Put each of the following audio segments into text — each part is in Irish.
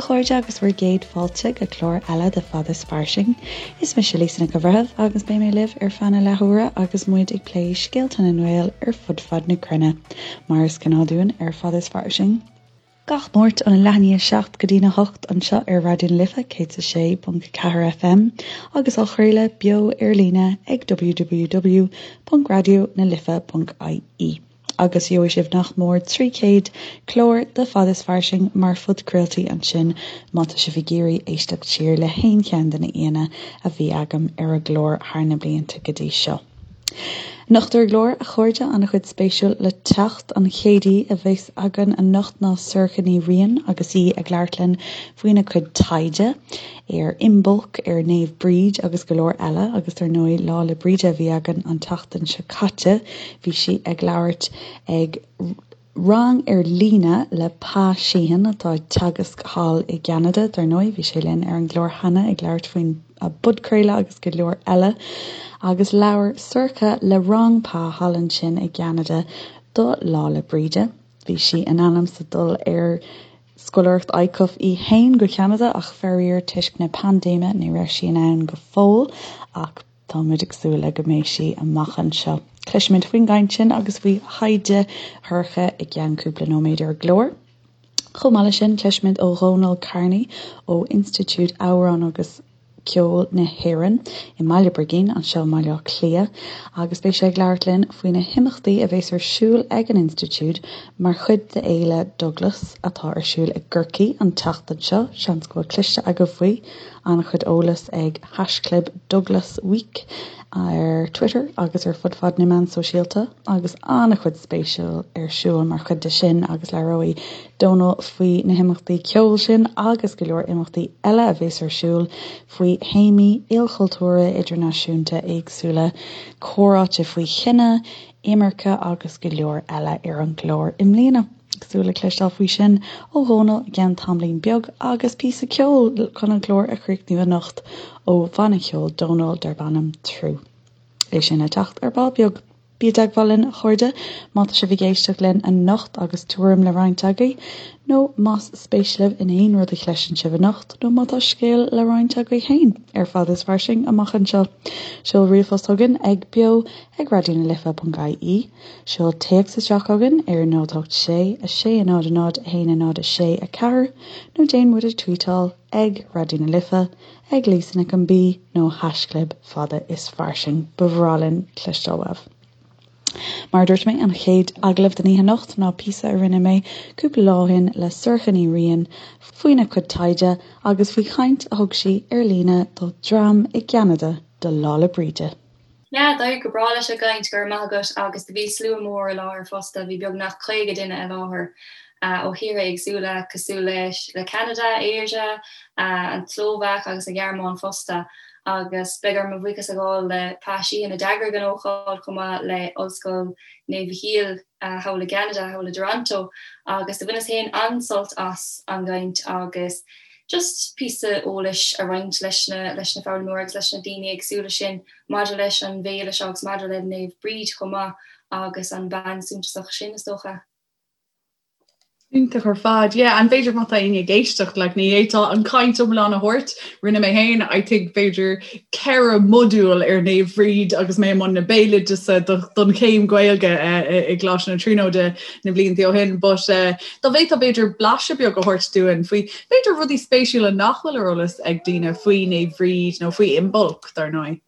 chairde agus bhur gcéad fáilte go clár eile de Fad is Fairsing. Is mise Lisa Nic an Bhreithimh agus beidh mé libh ar feadh na leathuaire agus muid ag plé scéalta na nGael ar fud fad na cruinne, mar is gnáth dúinn ar Fad is Fairsing. Gach Máirt óna leath i ndiaidh 7 go dtína 8 anseo ar Raidió na Life 106.4 FM agus á chraoladh beo ar líne ag www.raidionalife.ie. Agus gheobhaidh sibh nach mór 300 clár de Fad is Fairsing mar phodchraoltaí ansin má tá sibh ag iarraidh éisteacht siar le haon cheann de na aíonna a bhí agam ar an gclár thar na blianta go dtí seo. Anocht ar an gclár, a chairde, an-chuid spéisiúil le teacht. An chéad aoi a bheas againn anocht ná Sorcha Ní Riain agus í ag labhairt linn faoina cuid taighde ar Imbolc, ar Naomh Bríd agus go leor eile agus dar ndóigh Lá 'le Bríde a bhí againn an tseachtain seo caite. Bhí sí ag labhairt ag rang ar líne le Pa Sheehan atá ag teagasc thall i gCeanada, dar ndóigh, bhí sé linn ar an gclár cheana ag labhairt faoin bpodchraoladh agus go leor eile. Agus labhair Sorcha le rang Pa thall ansin i gCeanada do Lá 'le Bríde. Bhí sí in ainm 's a dul ar scoláireacht ICUF í fhéin go Ceanada ach faraor toisc na paindéime ní raibh sí in ann go fóill ach Tá muid ag súil le go mbeidh sí amach anseo. Cloisfimid faoin gcaint sin agus faoi thaighde Shorcha i gceann cúpla nóiméad ar an gclár. Chomh maith leis sin, cloisfimid ó Dhónal Kearney ó Institiúid Amhrán agus Ceoil na hÉireann i mBaile Brigín, anseo i mBaile Átha Cliath, agus beidh sé ag labhairt linn faoi na himeachtaí a bheas ar siúl ag an Institiúid mar chuid d'Fhéile Douglas atá ar siúl i gCorcaigh an tseachtain seo. Seans go bhfuil cloiste agaibh faoi. An-chuid eolas ag haischlib Douglas Week ar Twitter agus ar fud fad na meán sóisialta agus an-chuid spéisiúil ar siúl mar chuid de sin agus labhróidh Dónal faoi na himeachtaí ceoil sin agus go leor imeachtaí eile a bheas ar siúl faoi théamaí ilchultúrtha idirnáisiúnta éagsúla, comhráite faoi chine, imirce agus go leor eile ar an gclár i mbliana. Ag súil le cloisteáil faoi sin ó Dhónal i gceann tamaillín beag agus píosa ceoil chun an clár a chríochnú anocht ó bhanna ceoil Dónal darb ainm Trú. É sin le teacht ar ball beag. Bí i dteagmháil linn, a chairde, má tá sibh ag éisteacht linn anocht agus tuairim le roinnt agaibh, nó más spéis libh in aon rud a chloiseann sibh anocht, nó má tá scéal le roinnt agaibh féin ar Fad is Fairsing amach anseo. Seol ríomhphost chugainn ag beo ag raidionalife.ie. Seol téacs isteach chugainn ar 0 8 6 6 0 0 1 0 6 4 nó déan muid a tweetáil ag Raidió na Life, ag Lisa Nic an B nó haischlib Fada is Fairsing. Ba bhreá linn cloisteáil uaibh. Mar a dúirt mé, an chéad agallamh den oíche anocht ná píosa a rinne mé cúpla lá ó shin le Sorcha Ní Riain faoina cuid taighde agus faoi chaint a thug sí ar líne do dhream i gCeanada do Lá 'le Bríde. Yeah, d'éirigh go breá leis an gcaint, go raibh maith agat, agus do bhí slua mór i láthair fosta, bhí beagnach 50 duine i láthair ó thíortha éagsúla cosúil leis le Ceanada, Éire, an tSlóvaic agus an Ghearmáin fosta. Agus beidh orm mo bhuíochas a ghabháil le Pa Sheehan a d'eagraigh an ócáid chomh maith le Ollscoil Naomh Mhichíl thall i gCeanada, thall i dToronto, agus do bhaineas féin an-sult as an gcaint agus just píosa eolais a roinnt leis na leis na foghlaimeoirí agus leis na daoine éagsúla sin maidir leis an bhféile seo agus maidir le Naomh Bríd chomh maith agus an bean suntasach sin is dócha. Iontach ar fad. Yeah, and b'fhéidir má tá éinne ag éisteacht, like, ní fhéadfá an chaint iomlán a thabhairt, rinne mé féin, I think, b'fhéidir 4 modúl ar Naomh Bríd agus mé i mbun na béaloideasa don chéim Gaeilge i gColáiste na Tríonóide na blianta ó shin. But dá bhféadfá b'fhéidir blaiseadh beag a thabhairt dúinn faoi b'fhéidir rudaí spéisiúla nach bhfuil ar eolas ag daoine faoi Naomh Bhríd nó faoi Imbolc, dar ndóigh.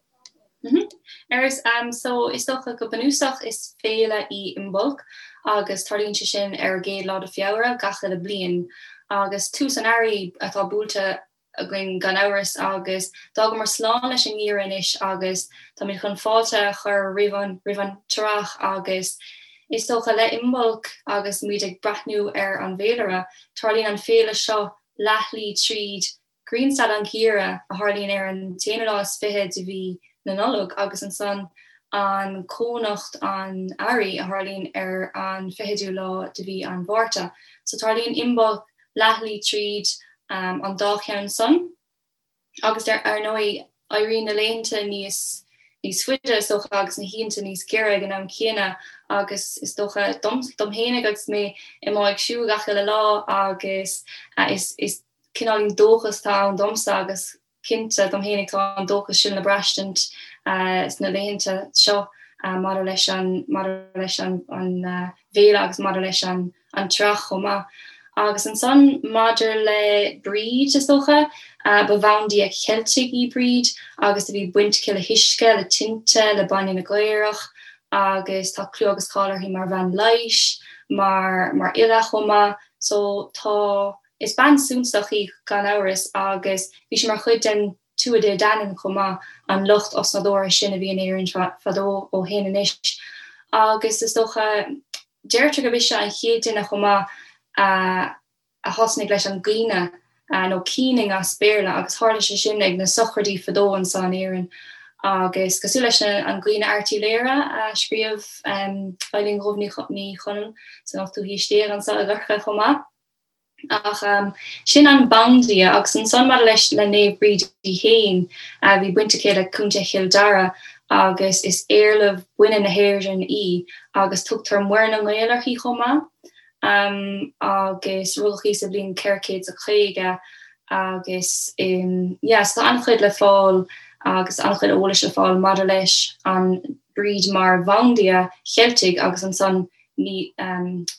Agus so is dócha go bunúsach is féile í Imbolc agus tarlaíonn sé sin ar an gcéad lá de Feabhra gach uile bliain agus tús an earraigh atá buailte againn gan amhras agus d'fhágamar slán leis an ngeimhreadh anois agus táimid chun fáilte a chur roimh an roimh an t-earrach agus is dócha le Imbolc agus muid ag breathnú ar an bhféilire, tarlaíonn an féile seo leathshlí tríd Grianstad an Gheimhridh a tharlaíonn ar an t-aonú lá is fiche de mhí na Nollag agus ansan an Cónocht an Earraigh a tharlaíonn ar an fichiú lá de mhí an Mhárta. So tarlaíonn Imbolc leathshlí tríd an dá cheann san agus ar ndóigh éiríonn na laethanta níos níos faide is dócha agus na hoícheanta níos giorra ag an am céanna agus is dócha dom dom fhéinig agus mé i mo ag siúl gach uile lá agus is is. cineáilín dóchas atá ann domsa agus cinnte dom fhéinig tá an dóchas sin le braistint sna laethanta seo maidir leis an maidir leis an bhféile agus maidir leis an an tsraith chomh maith. Agus ansan maidir le Bríd, is dócha, ba bhandia Cheiltigh í Bríd agus do bhí baint aici le huisce, le tinte, le bainne na gcaorach agus tá clú agus cáil uirthi mar bhean leighis, mar mar fhile chomh maith. So tá, is bean suntasach í gan amhras agus bhí sí mar chuid den Tuatha Dé Danann chomh maith, an lucht osnádúrtha sin a bhí in Éirinn fadó ó shin anois. Agus is dócha, deirtear gurb ise an chéad duine chomh maith a a thosnaigh leis an gcaoineadh, nó keening as Béarla, agus tharla sé sin ag na sochraidí fadó anso in Éirinn. Agus cosúil leis an gCaoineadh Airtléire a scríobh Eibhlín Dhubh Ní Chonaill san ochtú haois déag anso i gCorcaigh chomh maith. Ach sin an bandia agus ansan maidir leis le Naomh Bríd í fhéin, bhí baint aici le Contae Chill Dara agus is éarlamh baineann na hÉireann í agus tugtar Muire na nGael uirthi chomh maith. Agus rugadh í sa bhliain 450 agus yeah so tá an-chuid le fáil agus an-chuid eolais le fáil maidir leis an Bríd mar bhandia Cheiltigh agus ansan ní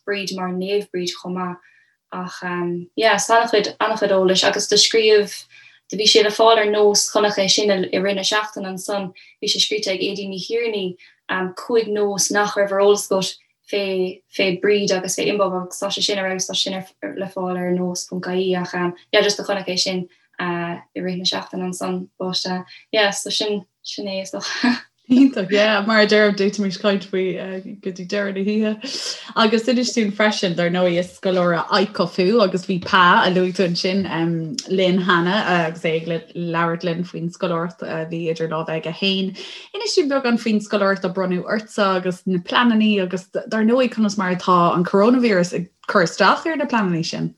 Bríd mar Naomh Bríd chomh maith ach yeah so an-chuid an-chuid eolais agus do scríobh do bhí sé le fáil ar Nós chonac é sin i rith na seachtaine ansan bhí sé scríte ag Aedín Ní Thiarnaigh 5 nós nach raibh ar eolas agat fé fé Bríd agus fé Imbolc agus tá sé sin ar fheabhas tá sé sin ar le fáil ar nós.ie ach yeah just do chonac é sin i rith na seachtaine ansan but yeah so sin sin é is dócha. Iontach, yeah, mar a deirim d'fhéadfaimis caint faoi go dtí deireadh na hoíche. Agus inis dúinn freisin, dar ndóigh, is scoláire ICUF thú agus bhí Pa, a luaigh tú ansin, linn cheana agus é ag labhairt linn faoin scoláireacht a bhí idir lámha aige féin. Inis dúinn beagán faoin scoláireacht a bronnadh ortsa agus na pleananna agus dar ndóigh conas mar atá an coronavirus ag cur isteach ar na pleananna sin.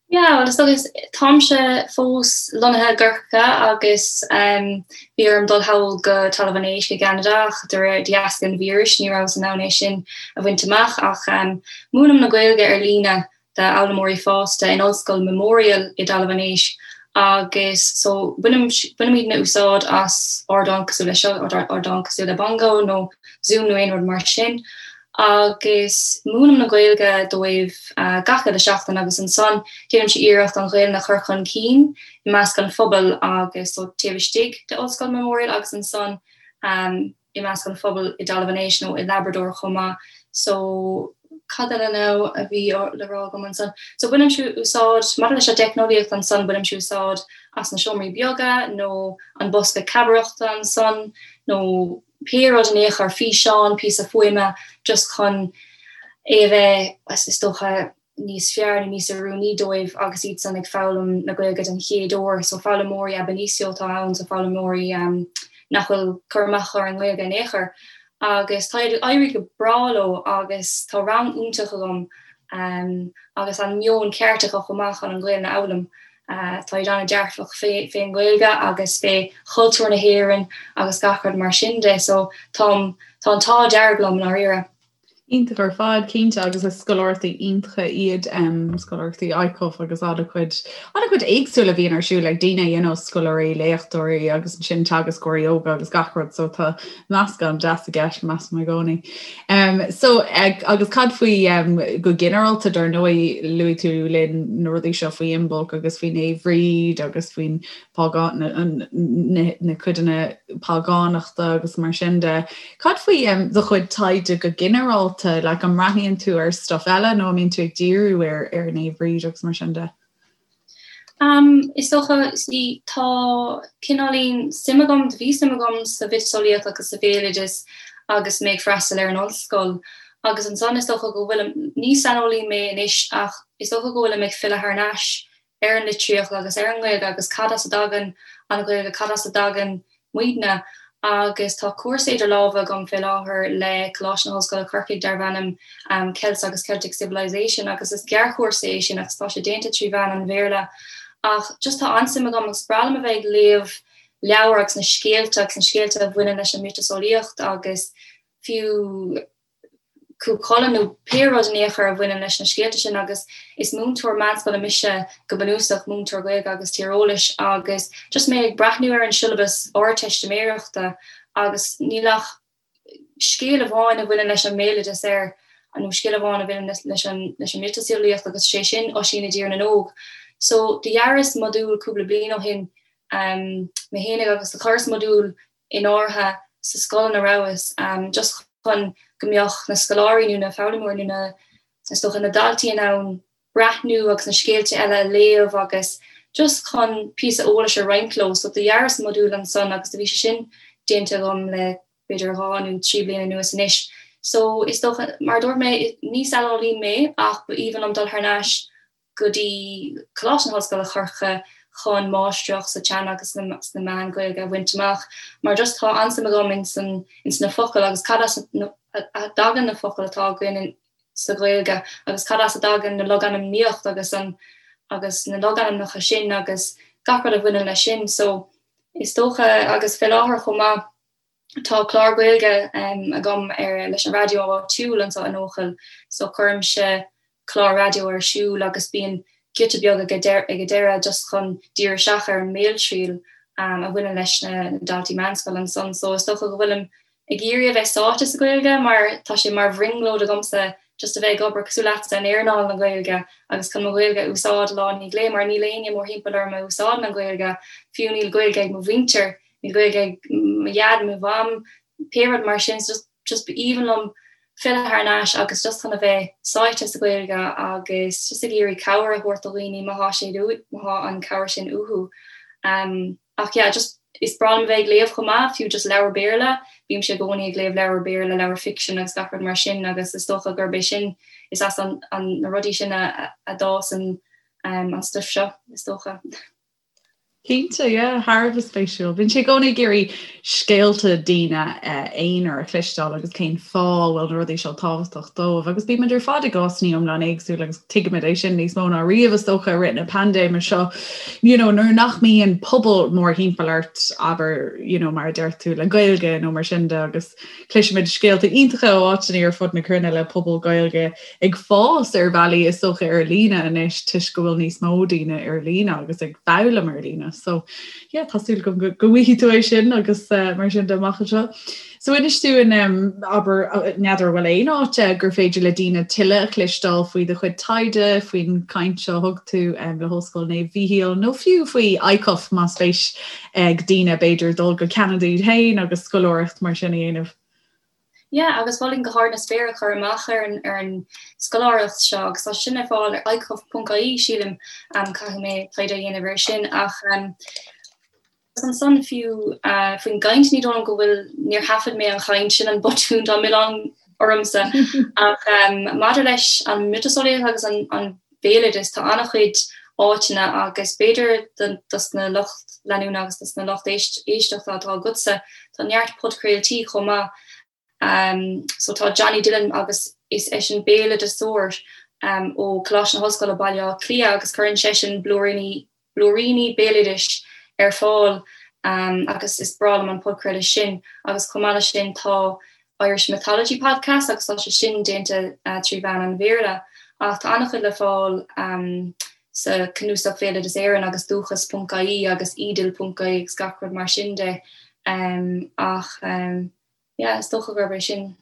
Yeah, well is dócha táimse fós lonnaithe i gCorcaigh agus bhí orm dul thall go Talamh an Éisc i gCeanada ach de réir de dheasca an víris ní rabhas in ann é sin a bhaint amach ach múinim na Gaeilge ar líne d'fhoghlaimeoirí fásta in Ollscoil Memorial i dTalamh an Éisc agus so bainim bainimidne úsáid as ardán cosúil le seo, ardán cosúil le Bongo nó Zoom nó aon rud mar sin. agus múinim na Gaeilge dóibh gach uile seachtain agus ansan déanaimse iarracht an Ghaelainn a chur chun cinn i measc an phobail agus so taobh istigh de Ollscoil Memorial agus ansan i measc an phobail i dTalamh an Éisc nó i Labrador chomh maith. So cad eile now a bhí le rá agam ansan? So bainimse úsáid, maidir leis an dteicneolaíocht ansan, bainimse úsáid as na seomraí beaga nó an bosca cabaireachta ansan nó pé rud in aon chor, físeán, píosa fuaime, just chun é a bheith, is dócha, níos fearr nó níos oiriúnaí dóibh agus iadsan ag foghlaim na Gaeilge den chéad uair. So foghlaimeoirí ab initio atá ann, so foghlaimeoirí nach bhfuil cur amach acu ar an nGaeilge in aon chor. Agus tá ag éirí go breá leo agus tá rang iontach agam agus an meon ceart acu chomh maith chun an Ghaelainn a fhoghlaim. Tá siad an-dearfach fén nGaeilge agus fé chultúr na hÉireann agus gach rud mar sin de so táim, tá an t-ádh dearg liom i ndáiríre. Iontach ar fad, cinnte, agus is scoláireachtaí iontacha iad scoláireachtaí ICUF agus an-chuid, an-chuid éagsúil a bhíonn ar siúl ag daoine, you know, scoláirí, léachtóirí agus ansin teagascóirí óga agus gach rud, so tá meascán deas i gceist, measaim i gcónaí. Um, so, ag, agus cad faoi um, go ginearálta dar ndóigh luaigh tú linn na rudaí seo faoi Imbolc agus faoi Naomh Bhríd agus faoin págán, na, na, na codanna págánachta agus mar sin de. Cad faoi um, do chuid taighde go ginearálta, like, an mbreathnaíonn tú ar stuff eile nó an mbíonn tú ag díriú ar, ar Naomh Bhríd agus mar sin de? Is dócha, see, tá cineáilín suim agam, bhí suim agam sa mhiotaseolaíocht agus sa bhéaloideas agus mé ag freastal ar an ollscoil agus ansan is dócha go bhfuilim, ní saineolaí mé anois ach is dócha go bhfuilim ag filleadh thar n-ais ar an litríocht agus ar an nGaeilge agus cad as a dtagann an Ghaeilge, cad as a dtagann muidne agus tá cúrsa idir lámha agam fé láthair le Coláiste na hOllscoile Corcaigh darb ainm Celts agus Celtic Civilization agus is gearrchúrsa é sin agus tá sé déanta trí mheán an Bhéarla ach just tá an-suim agam agus breá liom a bheith ag léamh leabhar agus na scéalta agus na scéalta a bhaineann leis an miotaseolaíocht agus fiú. Cú Chulainn nó pé rud in aon chor a bhaineann leis na scéalta sin agus is múinteoir meánscoile mise go bunúsach, múinteoir Gaeilge agus Tíreolais agus just mé ag breathnú ar an siollabas Ardteistiméireachta agus níl ach scéal amháin a bhaineann leis an mbéaloideas air nó scéal amháin a bhaineann leis an leis an miotaseolaíocht agus sé sin Oisín i dTír na nÓg. So do dhearas modúl cúpla bliain ó shin mé fhéinig agus do chuireas modúl in áirithe sa scoil ina rabhas, just chun go mbeadh na scoláirí nó na foghlaimeoirí nó na, is dócha, na daltaí in ann breathnú agus na scéalta eile a léamh agus just chun píosa eolais a roinnt leo. So do dhearas modúl ansan agus do bhí sé sin déanta agam le b'fhéidir 2 nó 3 bliana anuas anois. So is dócha, mar a dúirt mé, ní saineolaí mé ach ba aoibhinn liom dul thar n-ais go dtí Coláiste na hOllscoile Chorcaigh chun máistreacht sa teanga agus sna meáin Ghaeilge a bhaint amach mar just tá an-suim agam ins an ins na focail agus cad as a dtagann na focail atá againn sa Ghaeilge agus cad as a dtagann na logainmníocht agus an agus na logainmneacha sin agus gach rud a bhaineann leis sin so is dócha agus fé láthair chomh maith Tá clár Gaeilge agam ar leis an raidió áitiúil anseo in Eochaill so cuirimse clár raidió ar siúl agus bíonn giota beag ag an deireadh just chun díriú isteach ar an mbéaltriail a bhaineann leis na daltaí meánscoile ansan. So is dócha go bhfuilim ag iarraidh a bheith sáite sa Ghaeilge mar tá sé mar bhrionglóid agamsa just a bheith ag obair cosúil leatsa in earnáil na Gaeilge agus chun mo Ghaeilge a úsáid lá i ndiaidh lae mar níl éinne mórthimpeall orm a úsáideann an Ghaeilge, fiú níl Gaeilge ag mo mhuintir. Níl Gaeilge ag mo dhaid, mo mham, pé rud mar sin, so just just b'aoibhinn liom filleadh thar n-ais agus just chun a bheith sáite sa Ghaeilge agus just ag iarraidh cabhair a thabhairt do dhaoine má thá sé má thá an cabhair sin uathu. Um, ach yeah, just is breá liom a bheith ag léamh chomh maith, fiú just leabhar Béarla, bímse i gcónaí ag léamh leabhar Béarla, leabhar fiction agus gach rud mar sin agus is dócha gurb é sin, is as an, an, na rudaí sin a, a, a d'fhás an, um, an stuif seo, is dócha. Cinnte, yeah, thar a bheith spéisiúil. Bíonn sé i gcónaí ag iarraidh scéalta daoine aonair a chloisteáil agus cén fáth a bhfuil na rudaí seo tábhachtach dóibh. Agus bímid ar fad i gcásanna iomlán éagsúil agus tuigimid é sin níos mó ná riamh is dócha i rith na paindéime seo. You know, nuair nach mbíonn pobal mórthimpeall ort, abair, you know, mar a deir tú, le Gaeilge nó mar sin de agus Cloisimid scéalta iontacha ó áiteanna ar fud na cruinne le pobal Gaeilge ag fás ar bhealaí is dócha ar líne anois toisc go bhfuil níos mó daoine ar líne agus ag foghlaim ar líne. So yeah, tá súil agam go bhfaighidh tú é sin agus uh, mar sin de amach anseo. So inis dúinn um, abair n'fheadar bhfuil aon áit gur féidir le daoine tuilleadh a chloisteáil faoi do chuid taighde, faoin caint seo a thug tú um, le hOllscoil Naomh Mhíchíl nó fiú faoi ICUF más spéis ag daoine b'fhéidir dul go Ceanada iad féin agus scoláireacht mar sin a dhéanamh. Yeah, agus mholfainn go hard na spéire cur amach ar an ar an scoláireacht seo agus tá sin ar fáil ar icuf.ie sílim, um, caithfidh mé taighde a dhéanamh air sin ach um, ansan fiú uh, faoin gcaint ní dóigh liom go bhfuil níor thaifead mé an chaint sin an botún dá milleán ormsa ach um, maidir leis an miotaseolaíocht agus an, an béaloideas, tá an-chuid áiteanna agus b'fhéidir dos na lucht leanúna agus dos na lucht éisteachta atá agatsa, tá neart podchraoltaí chomh maith. So tá Johnny Dillon agus is eisean béaloideasóir ó Choláiste na hOllscoile Baile Átha Cliath agus cuireann seisean blúiríní blúiríní béaloidis ar fáil agus is breá liom an podchraoladh sin agus chomh maith leis sin tá Irish Mythology Podcast agus tá sé sin déanta trí mheán an Bhéarla ach tá an-chuid le fáil sa Cnuasach Bhéaloideas Éireann agus Dúchas ponc ie agus Edel ponc ie agus gach rud mar sin de ach yeah is dócha gurb é sin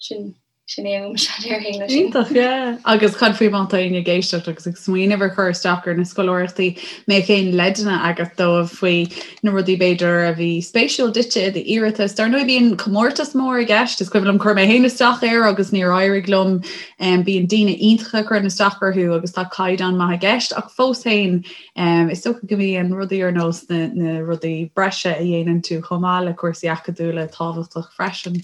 Sin, sin é uaimse, déarfainn leis sin. Iontach, yeah. Agus cad faoi má tá éinne ag éisteacht agus ag smaoineamh ar chur isteach ar na scoláireachtaí, mbeadh aon leideanna agat dóibh faoi na rudaí b'fhéidir a bhí spéisiúil duitse i d'iarratas? Dar ndóigh bíonn comórtas mór i gceist, is cuimhin liom chuir mé féin isteach air agus níor éirigh liom. Bíonn daoine iontacha ag cur isteach orthu agus tá caighdeán maith i gceist ach fós féin is dócha go mbíonn rudaí ar nós na, na rudaí breise a dhéanann tú chomh maith le cúrsaí acadúla tábhachtach freisin.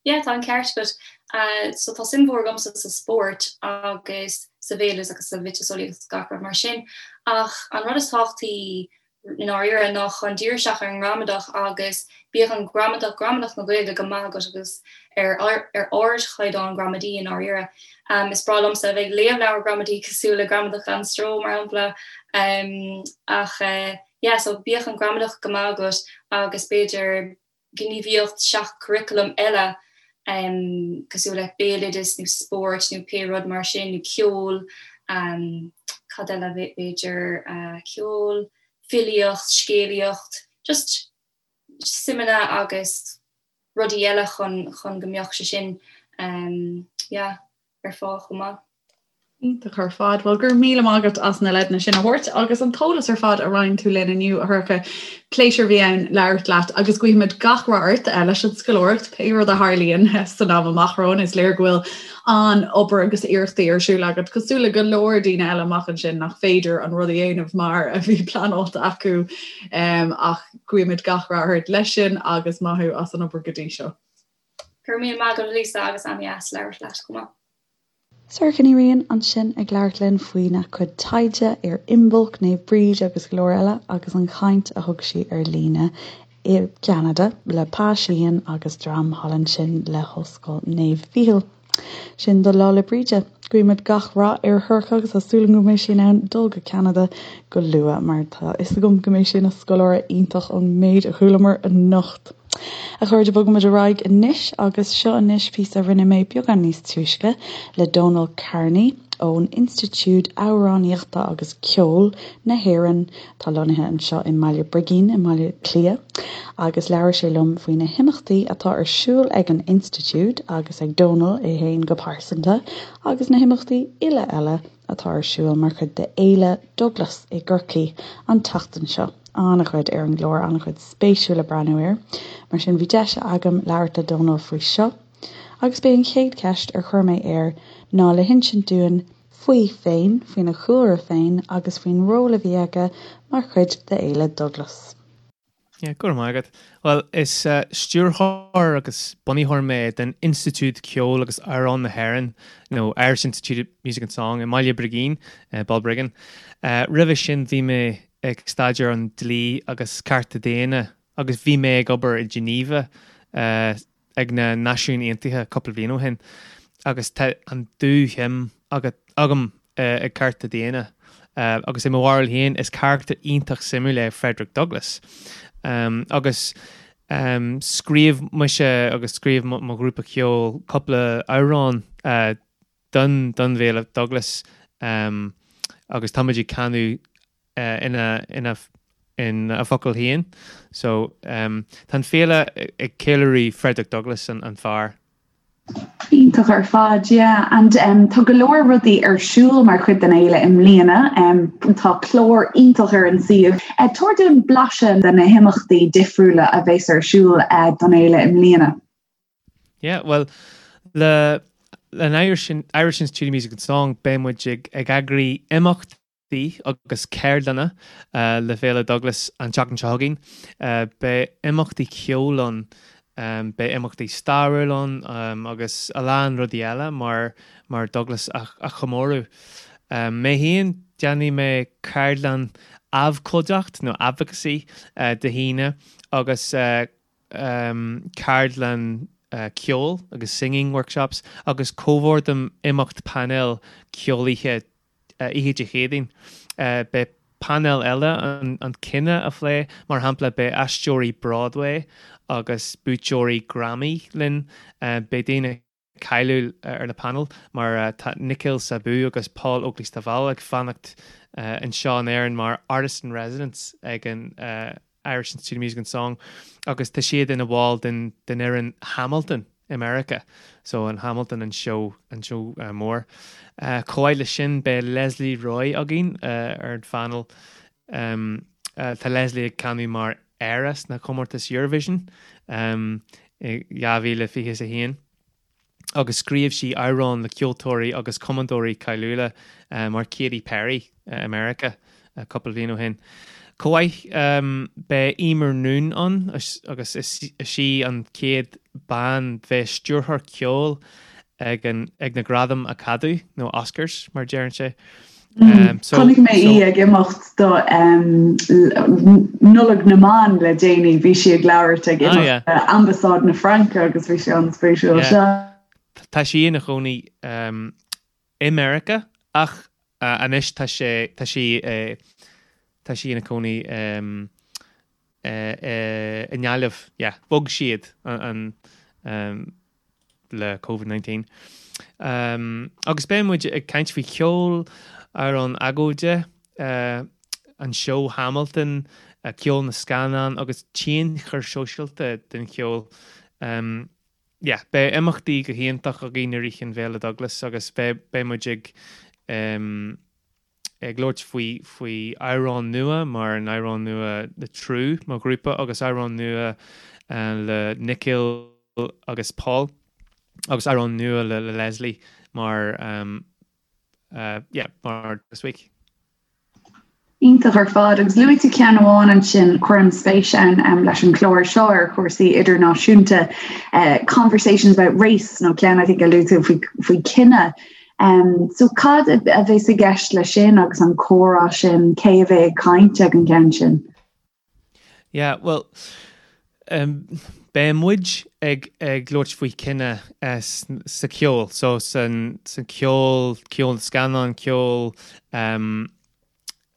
Yeah, tá an ceart agat. So tá suim mhór agamsa sa spórt agus sa bhéaloideas agus sa mhiotaseolaíocht agus gach rud mar sin. Ach an rud is tábhachtaí i ndáiríre ná chun díriú isteach ar an ngramadach agus bíodh an gramadach, gramadach na Gaeilge go maith agat agus ar ar ardchaighdeán gramadaí i ndáiríre. Is breá liomsa a bheith ag léamh leabhar gramadaí cosúil le Gramadach gan Stró mar shampla. Ach yeah, so bíodh an gramadach go maith agat agus b'fhéidir gníomhaíocht seach-churaclaim eile. Cosúil le béaloideas nó spórt nó pé rud mar sin nó ceol, cad eile b'fhéidir, ceol, filíocht, scéalaíocht, just suimeanna agus rudaí eile chun chun go mbeadh sé sin yeah ar fáil chomh maith. Iontach ar fad. Bhuel, go raibh míle maith agat as na leideanna sin a thabhairt agus an t-eolas ar fad a roinn tú linn inniu, a Shorcha. Pléisiúr a bhí ann labhairt leat agus guímid gach rath ort eh, leis an scoláireacht, pé rud a tharlaíonn eh, san am amach romhainn. Is léir go bhfuil an-obair agus iarrachtaí ar siúl agat, cosúil le go leor daoine eile amach ansin nach féidir an rud a dhéanamh mar a bhí pleanáilte acu ach guímid gach rath ort leis sin agus maith thú as an obair go dtí seo. Go raibh míle maith agat, Lisa, agus an-deas labhairt leat chomh maith. Sorcha Ní Riain ansin ag labhairt linn faoina cuid taighde ar Imbolc, Naomh Bríd agus go leor eile agus an chaint a thug sí ar líne i gCeanada le Pa Sheehan agus dream thall ansin le hOllscoil Naomh Mhíchíl. Sin do Lá 'le Bríde. Guímid gach rath ar Shorcha agus tá súil agam go mbeidh sí in ann dul go Ceanada go luath mar tá a fhios agam go mbeidh sí ina scoláire iontach ón méid a chualamar anocht. A chairde, bogaimid ar aghaidh anois agus seo anois píosa a rinne mé beagán níos túisce le Dónal Kearney ón Institiúid Amhránaíochta agus Ceoil na hÉireann atá lonnaithe anseo i mBaile Brigín i mBaile Átha Cliath agus labhair sé liom faoi na himeachtaí atá ar siúl ag an Institiúid agus ag Dónal é féin go pearsanta agus na himeachtaí uile eile atá ar siúl mar chuid de Fhéile Douglas i gCorcaigh an tseachtain seo. An-chuid ar an gclár, an-chuid spéisiúil le breathnú air. Mar sin bhí deis agam labhairt le Dónal faoi seo. Agus b'é an chéad cheist ar chuir mé air ná le hinsint dúinn faoi féin, faoina chúlra féin agus faoin ról a bhí aige mar chuid de Fhéile Douglas. Yeah, go raibh maith agat. Bhuel, is stiúrthóir agus bunaitheoir mé den Institiúid Ceoil agus Amhrán na hÉireann, nó Irish Institute of Music and Song, i mBaile Brigín, Balbriggan. Roimhe sin bhí mé ag staidéar an dlí agus cearta daonna agus bhí mé ag obair i Geneva ag na Náisiúin Aontaithe cúpla bliain ó shin agus tá an dúshuim agam ag cearta daonna agus i mo bharúil féin is carachtar iontach suimiúil é Frederick Douglass agus scríobh mise agus scríobh mo ghrúpa ceoil cúpla amhrán don don bhFéile Douglas agus táimid ag canadh ina ina ina focail féin. So tá an féile ag ceiliúradh Frederick Douglass an an fear. Iontach ar fad, yeah. And um, tá go leor rudaí ar siúl mar chuid den fhéile i mbliana. Um, tá clár iontach ar an suíomh. Uh, tabhair dúinn blaiseadh de na himeachtaí difriúla a bheas ar siúl uh, don fhéile i mbliana. Yeah, well, le an Irish, Irish Institute of Music and Song beidh muid ag, ag eagraí imeachtaí agus ceardlanna le Féile Douglas an tseachtain seo chugainn. Beidh imeachtaí ceoil ann, beidh imeachtaí stairiúil ann agus a lán rudaí eile mar, mar Douglas a, a chomóradh. Mé féin, déanfaidh mé ceardlann abhcóideacht nó advocacy Dé hAoine agus ceardlann ceoil agus singing workshops agus comhordaím imeacht painéil ceoil oíche oíche Dé Céadaoin. Beidh painéal eile an cinneadh a phlé, mar shampla beidh aisteoirí Broadway agus buaiteoirí Grammy linn, beidh daoine cáiliúil ar na painéil mar tá Nikhil Sabu agus Paul Oakley-Stovall ag fanacht anseo in Éirinn mar Artist in Residence ag an Irish Institute of Music and Song agus tá siad ina bhall den den fhoireann Hamilton i Meiriceá so an Hamilton an seó an seó mór. Chomh maith leis sin beidh Lesley Roy againn ar an phainéal. Tá Lesley ag canadh mar Éire sna comórtais Eurovision i 2021 agus scríobh sí amhráin le ceoltóirí agus cumadóirí cáiliúla mar Katy Perry i Meiriceá cúpla bliain ó shin. Chomh maith beidh Eimear Noone ann agus is í an chéad bean bheith stiúrthóir ceoil ag an ag na Gradaim Acadamh nó Oscars mar a deireann sé. Chonaic mé í ag imeacht do Nollaig na mBan le déanaí, bhí sí ag labhairt ag imeacht Ambasáid na Fraince agus bhí sé an-spéisiúil. Tá sí ina chónaí i Meiriceá ach anois tá sé tá sí tá sí ina cónaí i nGaillimh. Yeah, bhog siad an. le Covid-19. Agus beidh muid ag caint faoi cheol, amhráin agóide, an seó Hamilton, ceol na scannán agus tionchar sóisialta den cheol. Yeah, beidh imeachtaí go hiontach againn i rith an bhFéile Douglas agus beidh beidh muid ag ag labhairt faoi faoi amhrán nua mar an amhrán nua le Trú mar ghrúpa agus amhrán nua le Nikhil agus Paul agus amhrán nua le le Leslie mar yeah mar this week. Iontach ar fad. Agus luaigh tú ceann amháin ansin, cuirim spéis ann leis an chlár seo ar chúrsaí idirnáisiúnta, Conversations about Race nó ceann I think a luaigh tú faoi faoi cine. So cad a bheas i gceist leis sin agus an comhrá sin, cé a bheidh ag caint ag an gceann sin? Yeah, bhuel, beidh muid ag ag labhairt faoi cine sa cheol, so san san ceol, ceol na scannán, ceol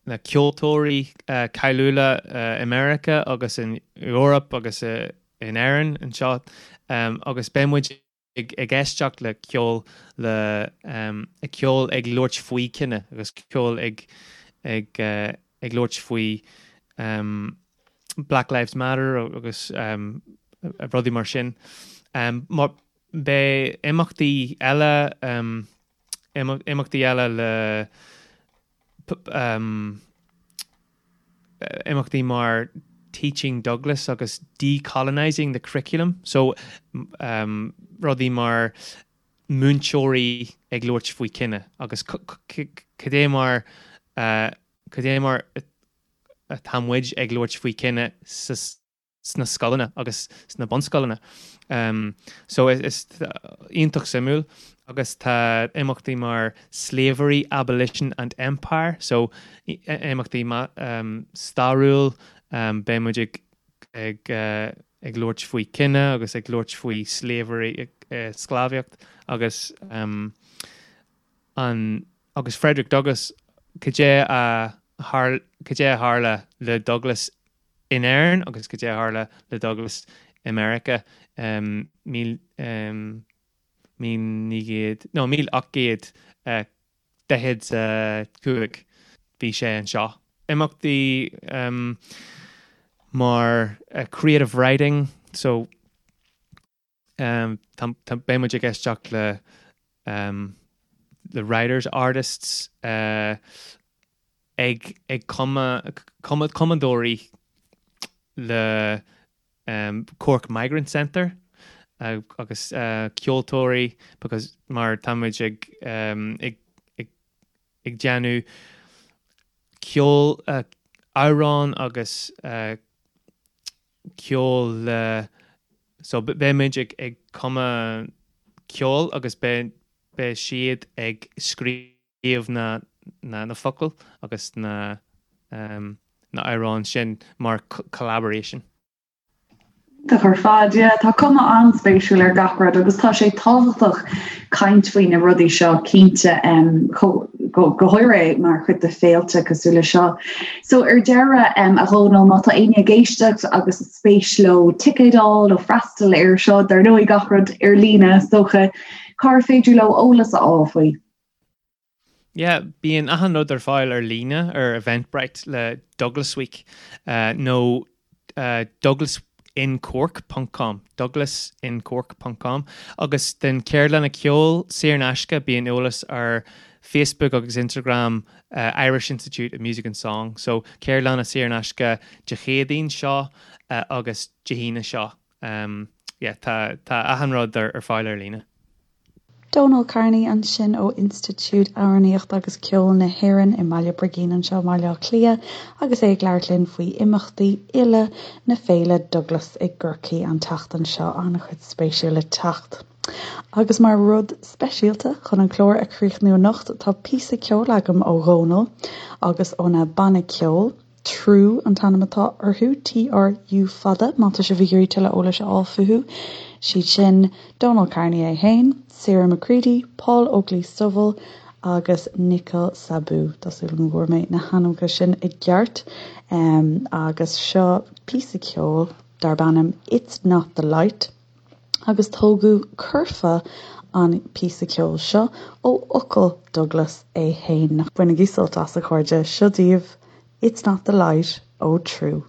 na ceoltóirí cáiliúla i Meiriceá agus in Eoraip agus in Éirinn anseo agus beidh muid ag éisteacht le ceol le ceol ag labhairt faoi cine agus ceol ag ag ag labhairt faoi Black Lives Matter agus rudaí mar sin. Mar beidh imeachtaí eile imeachtaí eile le imeachtaí mar Teaching Douglas agus Decolonising the Curriculum, so rudaí mar múinteoirí ag labhairt faoi cine agus cad é mar cad é mar atá muid ag labhairt faoi cine sa sna scoileanna agus sna bunscoileanna. So is iontach suimiúil agus tá imeachtaí mar Slavery, Abolition and Empire, so imeachtaí stairiúil, beidh muid ag ag ag labhairt faoi cine agus ag labhairt faoi slavery, sclábhaíocht agus an agus Frederick Douglass, cad é a cad é a tharla le Douglass in Éirinn agus cad é a tharla le Douglass i Meiriceá 1900, nó 1845, bhí sé anseo. Imeachtaí mar creative writing, so beidh muid ag éisteacht le le writers, artists ag ag cumadh cumadóirí le Cork Migrant Centre agus ceoltóirí because mar tá muid ag ag ag ag déanamh ceol amhrán agus ceol le so beidh muid ag ag cumadh ceol agus beidh beidh siad ag scríobh na na na focail agus na na amhráin sin mar collaboration. Iontach ar fad, yeah. Tá cuma an-spéisiúil ar gach rud agus tá sé tábhachtach caint faoi na rudaí seo cinnte go háirithe mar chuid de féilte cosúil le seo. So ar deireadh a Dhónaill, má tá éinne ag éisteacht agus spéis leo ticéad a fháil nó freastal air seo, dar ndóigh gach rud ar líne is dócha, cár féidir leo eolas a fháil faoi? Yeah, bíonn achan rud ar fáil ar líne ar Eventbrite le Douglas Week nó douglasincork ponc com, douglasincork ponc com, agus den ceardlanna ceoil saor in aisce bíonn eolas ar Facebook agus Instagram Irish Institute of Music and Song. So ceardlanna saor in aisce Dé Céadaoin seo agus Dé hAoine seo. Yeah, tá tá achan rud ar fáil ar líne. Dónal Kearney ansin ó Institiúid Amhránaíochta agus Ceoil na hÉireann i mBaile Brigín anseo i mBaile Átha Cliath agus é ag labhairt linn faoi imeachtaí uile na Féile Douglas i gCorcaigh an tseachtain seo. An-chuid spéisiúil le teacht. Agus mar rud speisialta chun an clár a chríochnú anocht tá píosa ceoil agam ó Dhónal agus óna banna ceoil. Trú an t-ainm atá orthu, TRU fada, má tá sibh ag iarraidh tuilleadh eolais a fháil fúthu. Siad sin Dónal Kearney é féin, Sarah McCready, Paul Oakley-Stovell agus Nikhil Saboo. Tá súil agam go bhfuair mé na hainmneacha sin i gceart. Agus seo píosa ceoil darb ainm 'It's Not The Light'. Agus tógadh curfá an píosa ceoil seo ó fhocail Douglas é féin. Bainigí sult as, a chairde, seo daoibh It's Not the Light ó Trú.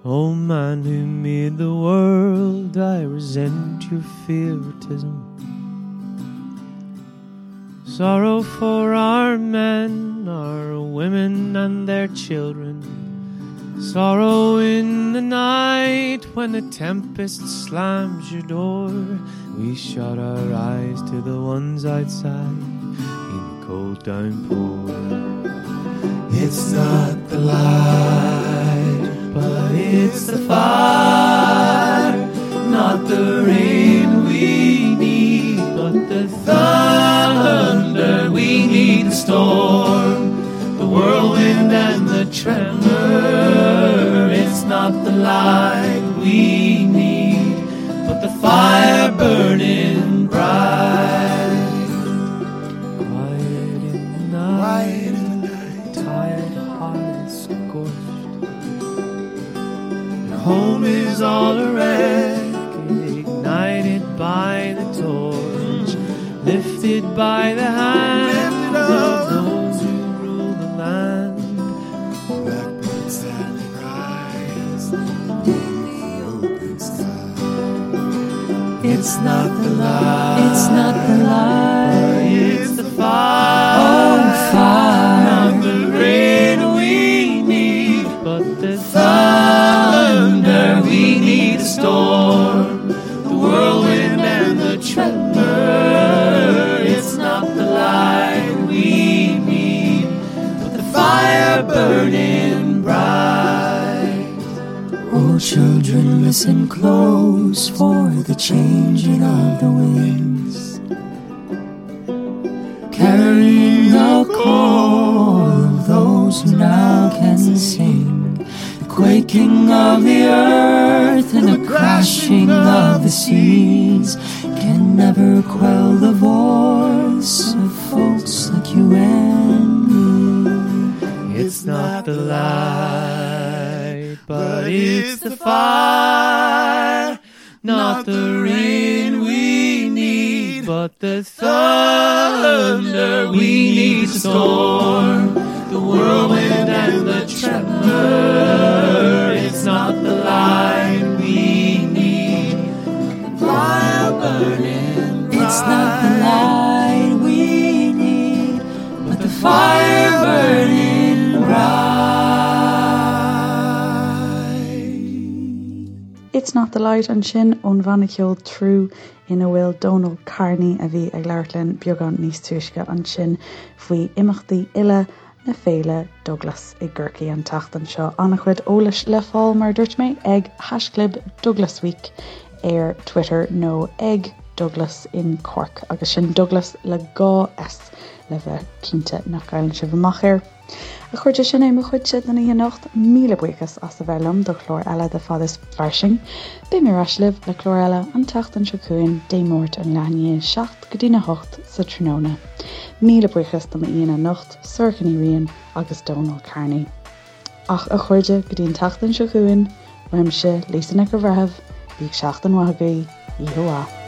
O man who made the world, I resent your favoritism. Sorrow for our men, our women and their children. Sorrow in the night when the tempest slams your door. We shut our eyes to the ones outside in the cold downpour. It's not the light, but it's the fire, not the rain we need, but the thunder we need the storm, the whirlwind and the tremor. It's not the light we need, but the fire burning bright. Quiet in the night, tired hearts scorched. Your home is all a wreck, ignited by the torch, lifted by the hand of those who rule the land. Blackbird sadly cries in the open sky. It's not the light. It's not the light. It's the fire. Oh, fire. Not the rain we need, but the thunder we need. The storm, the whirlwind, and the tremor. It's not the light we need, but the fire burning bright. Oh, children, listen close for the changing of the winds, carrying the call of those who now can sing, the quaking of the earth and the crashing of the seas can never quell the voice of folks like you and me. It's not the light, but it's the fire. Not the rain we need, but the thunder we need. The storm, the whirlwind, and the tremor. It's not the light we need, the fire burning bright. It's not the light we need, but the fire burning bright. It's Not the Light ansin ón bhanna ceoil Trú ina bhfuil Dónal Carney a bhí ag labhairt linn beagán níos túisce ansin faoi imeachtaí uile na féile Douglas i gCorcaigh an tseachtain seo. An-chuid eolais le fáil mar a dúirt mé ag haischlib Douglasweek ar Twitter nó ag Douglas in Cork agus sin Douglas le dhá S le bheith cinnte nach gcailleann sibh amach air. A chairde, sin é mo chuidse don oíche anocht. Míle buíochas as a bheith liom do chlár eile de Fad is Fairsing. Beidh mé ar ais libh le clár eile an tseachtain seo chugainn, Dé Máirt ón leath i ndiaidh 7 go dtína 8 sa tráthnóna. Míle buíochas do m'aíonna anocht, Sorcha Ní Riain agus Dónal Carney. Ach a chairde, go dtí an tseachtain seo chugainn, uaimse, Lisa Nic an Bhreithimh, bíodh seachtain mhaith agaibh, oíche mhaith.